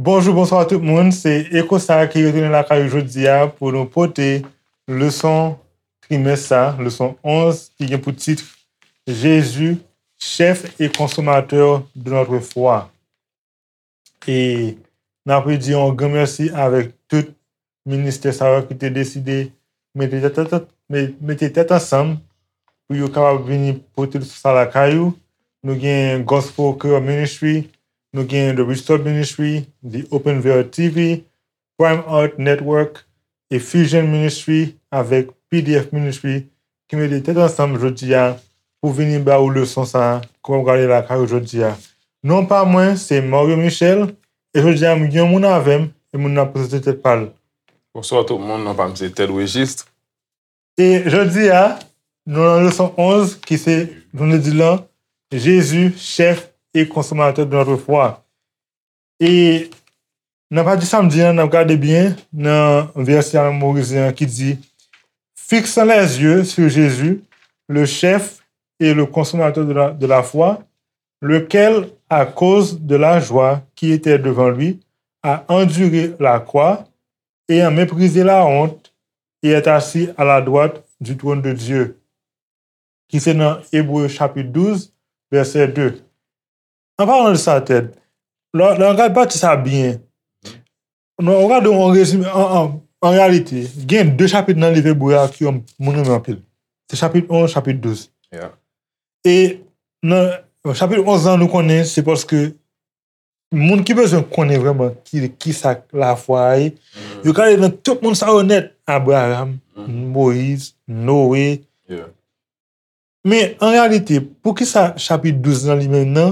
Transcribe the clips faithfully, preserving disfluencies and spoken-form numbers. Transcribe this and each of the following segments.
Bonjou, bonswa tout moun. Se Eko sa ki retounen lakay ou jodi a pou nou pote leson trimès sa, leson onz, ki gen pou tit Jésus, chef et consommateur de notre foi. E n ap redi yon gran mèsi avèk tout ministè sa yo ki te deside mete tèt, tèt, tèt, me- mete tèt ansanm pou yo kapab vini pote leson sa lakay ou. Nou gen Gospel Care Ministry, nou gen The Restore Ministry, The Open Veil T V, Prime Art Network, e Fusion Ministry avèk P D F Ministry ki mete tèt ansanm jodi a pou vini ba ou leson sa a ke w ap gade lakay ou jodi a. Non pa mwen, se Mario Michel, e jodi a m gen yon moun avè m, e moun nan ap prezante tèt pa l. Bonswa tout moun, non pa m se Ted Regis. E jodi a, nou nan leson onz, ki se, nou di lan, Jésus, chef et consommateur de notre foi. E nan pati samdi an, n ap gade byen nan vèsè a memorize an ki di, fixant les yeux sur Jésus, le chef et le consommateur de la, de la foi, lequel, à cause de la joie qui était devant lui, a enduré la croix, ayant méprisé la honte, et est assis à la droite du trône de Dieu. Ki se nan Ebre chapit douz, vèsè de. An palan de sa, Ted, lè lè w gade pati sa byen, non, w gade yon rezime, an, an, an reyalite, gen de chapit nan liv Ebre a ke moun renmen anpil. Se chapit onz, chapit douz. Yeah. E nan chapit onz lan, nou konnen se paske moun ki bezwen konnen vrèman ki, ki sa lafwa a ye, yo ka ale nan tout moun sa yo nèt, Abraram, Moyiz, Noe. Yeah. Men, an reyalite, poukisa chapit douz lan li menm nan,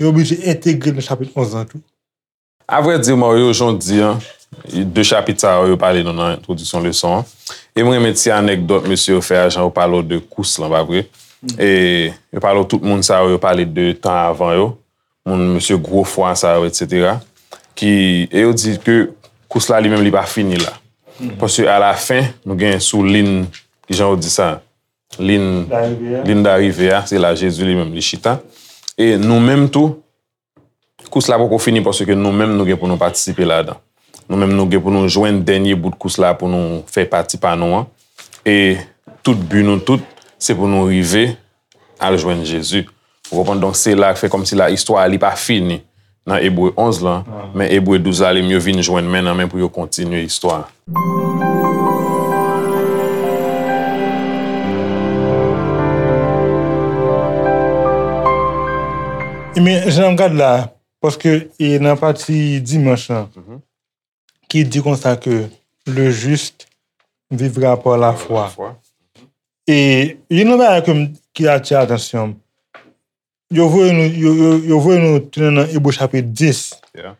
yo oblije entegre l nan chapit onz lan tou? Avrèdi, Mario, jan w di an, de chapit sa yo, yo pale nou nan entwodiksyon leson an. E mwen renmen ti anèkdòt mesye yo fè a, jan yo pale w de kous lan, pa vre? E yo pale w tout moun sa yo, yo pale de tan avan yo, moun mesye gwo fwa sa yo, etsetera. Ki, e yo di ke kous la li menm li pa fini la. Paske alafen, nou gen sou lin, kijan yo di sa? Lin, lin darive a, se la Jezi li menm li chita. E nou menm tou, kous la poko fini paske nou menm nou gen pou nou patisipe ladan. Nou menm nou gen pou nou jwenn dènye bout kous la pou nou fè pati pa nou an. E tout bi nou tout, se pou nou rive al jwenn Jezi. Ou konprann? Donk, se la k fè kòmsi la istwa a li pa fini nan Ebre onz lan, men Ebre douz la, li m yo vin jwenn men nan men pou yo kontinye istwa a. Ebyen, jan n ap gad la, paske e nan pati dimanch lan, ki di konsa ke le juste vivra par la foi. E youn nan bagay ke m, ki atire atansyon m, yo voye nou, yo, yo, yo voye nou tounen nan Ebre chapit dis. Yeah.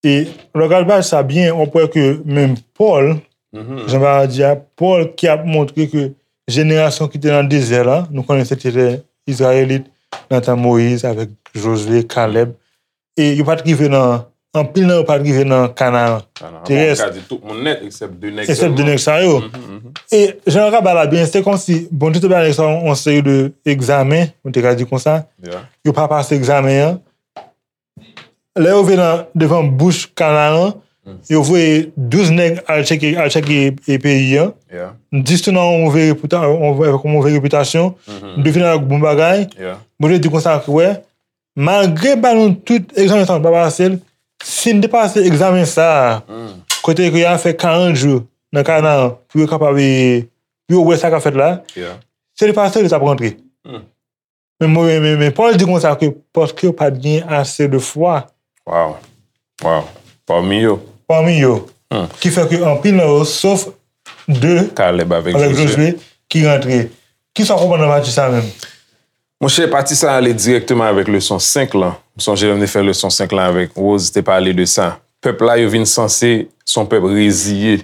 E lè w gade paj sa byen, w ap wè ke menm Pòl, jan bagay di a, Pòl ki ap montre ke jenerasyon ki te nan dezè la, nou konnen se te Izrayelit nan tan Moyiz avèk Jozye, Kalèb, e yo pa t rive nan, anpil nan yo pa t rive nan Kanaan terès. Ou ka di tout moun nèt, eksèp de nèg sèlman. Eksèp de nèg sa yo. E jan yo ka bay la byen, se kòmsi Bondye te bay nèg sa yo yon seri de egzamen, nou te ka di konsa. Yeah. Yo pa pase egzamen an. Lè yo rive nan, devan bouch Kanaan, yo voye douz nèg al tcheke, al tcheke e peyi an. Yeah. Dis tou nan yon move repita-, yon move, yon move repitasyon. Douz vin avèk bon bagay. Yeah. Bondye di konsa ke, wè, malgre ba nou tout egzamen sa nou pa pase l, si n te pase egzamen sa a, kote ke y a fè karant jou nan Kanaan pou yo kapab, pou yo wè sa k ap fèt la, si yo te pase l, yo t ap rantre. Men, men, men, men Pòl di konsa ke paske yo pa t gen ase de fwa. Wow. Wow. Pami yo. Pami yo. Ki fè ke anpil nan yo, sof de Kalèb avèk Jozye, ki rantre. Kisa w konprann nan pati sa menm? Monchè, pati sa ale dirèkteman avèk leson senk lan. M sonje lè m te fè leson senk lan avèk Rose, te pale de sa. Pèp la, yo vin sanse se yon pèp reziye.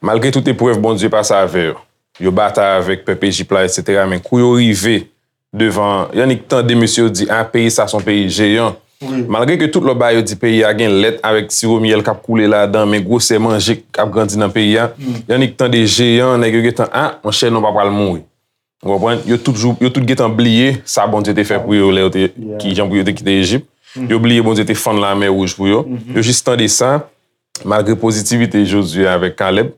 Malgre tout eprèv Bondye pase avè yo. Yo batay avèk pèp Ejip la, etsetera. Men kou yo rive devan, y annik tande mesye yo di, a, peyi sa se yon peyi jeyan. Wi. Malgre ke tout lòt bagay yo di peyi a gen lèt avèk siwo myèl k ap koule ladan, men gwosè manje k ap grandi nan peyi a, y annik tande jeyan, nèg yo gentan, a, monchè, nou pa pral mouri. Ou konprann? Yo tout jou, yo tout gentan bliye sa Bondye te fè pou yo lè yo te, ki jan pou yo te kite Ejip. Yo bliye Bondye te fann Lamè Wouj pou yo. Yo jis tande sa, malgre pozitivite Jozye avèk Kalèb,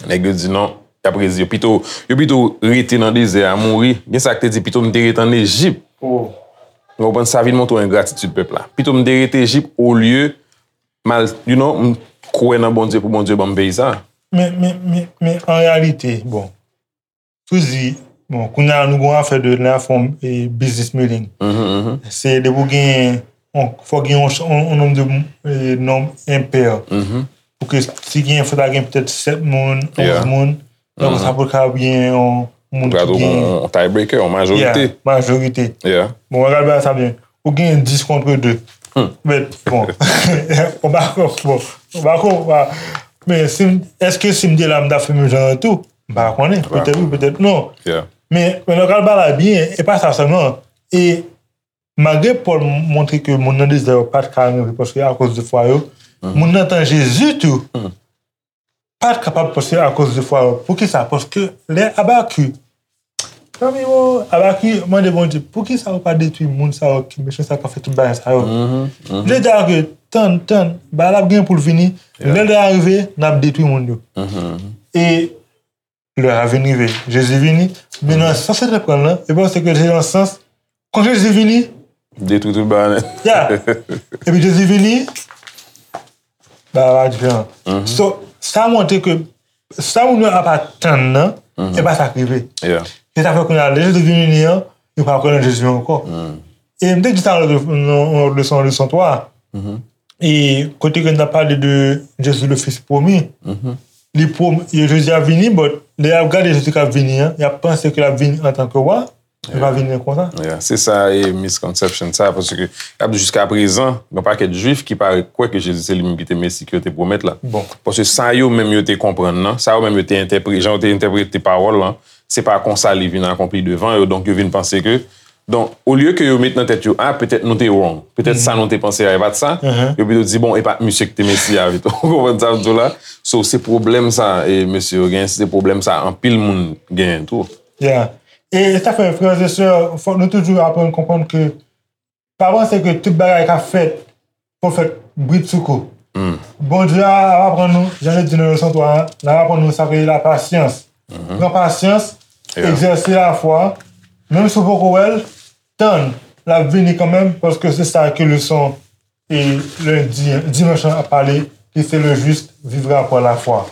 nèg yo di non, y ap rezi yo. Pito, yo pito rete nan dezè a, mouri. Gen sa k te di, pito m te rete ann Ejip. Ou konprann, sa vin montre w engratitid pèp la. Pito m te rete Ejip olye m al, you know, m kwè nan Bondye pou Bondye ban m peyi sa. Men, men, men, men an reyalite, bon, Souzi, bon, kounye a nou gon afè de la fòm e business meeting. Se depi w gen, on, fò gen on, on, on nonm de, e, nonm enpè. Pou ke si gen, fò ta gen petèt sèt moun, onz moun. Donk sa pou ka gen yon moun ki gen. On tiebreaker, on majorite. Majorite. Bon, gade sa byen. Ou gen dis contre deux. But, bon, on pa, bon, on pa, men si, èske si m te la, m ta fè menm jan an tou? M pa konnen. Petèt wi, petèt non. Men, men nan ka bagay la byen, e pa sa sèlman. E malgre Pòl montre ke moun nan dezè yo pa t ka rive paske akoz de fwa yo, moun nan tan Jezi tou pa t kapab paske akoz de fwa yo. Poukisa? Paske lè Abakik, zanmi yo, Abakik mande Bondye, poukisa ou pa detwi moun sa yo ki mechan sa k ap fè tout bagay sa yo? Li di ke tann, tann, bagay la ap gen pou l vini. Lè l rive, n ap detwi moun yo. E lè a vin rive, Jezi vini, men nan sans li te pran l lan, e panse ke se nan sans, kan Jezi vini, detwi tout bagay nèt. Ya. Epi Jezi vini, bagay la diferan. So, sa montre ke sa moun yo ap atann nan, e pa sa k rive. Se sa fè kounye a, lè Jezi vini an, yo pa kwè nan Jezi ankò. E m te di sa nan yon lòt leson, leson twa. E kote ke n t ap pale de Jezi le Fils promis. Li pwom, Jezi ap vini, but lè y ap gade Jezi k ap vini an, y ap panse ke l ap vini antanke wa, li pa vini konsa. Se sa e misconception sa, paske y ap di jiska prezan, gen pakèt Jwif ki pa kwè ke Jezi se li menm ki te Mesi ke yo te pwomèt la. Paske sa yo menm yo te konprann nan, sa yo menm yo te entèprete, jan yo te entèprete pawòl lan, se pa konsa li vin akonpli devan yo, donk yo vin panse ke Donk, olye ke yo met nan tèt yo, a, petèt nou te wrong. Petèt sa nou te panse a, e pa t sa. Yo pito di, bon, e pa t misye ki te Mesi a, pito. Ou konprann sa m di w la? So, se pwoblèm sa, e mesye yo genyen, se pwoblèm sa, anpil moun genyen tou. Yeah. E sa fè, frè e sè, fòk nou toujou aprann konprann ke pa panse ke tout bagay k ap fèt pwofèt bridsoukou. Bondye ap aprann nou, jan yo di nan leson twa an, l ap aprann nou sa k rele lapasyans. Pran pasyans, egzèse lafwa, menm si w poko wè l, tann, l ap vini kanmenm, paske se sa ke leson e lendi, dimanch lan ap pale, ki se le juste vivra par la foi.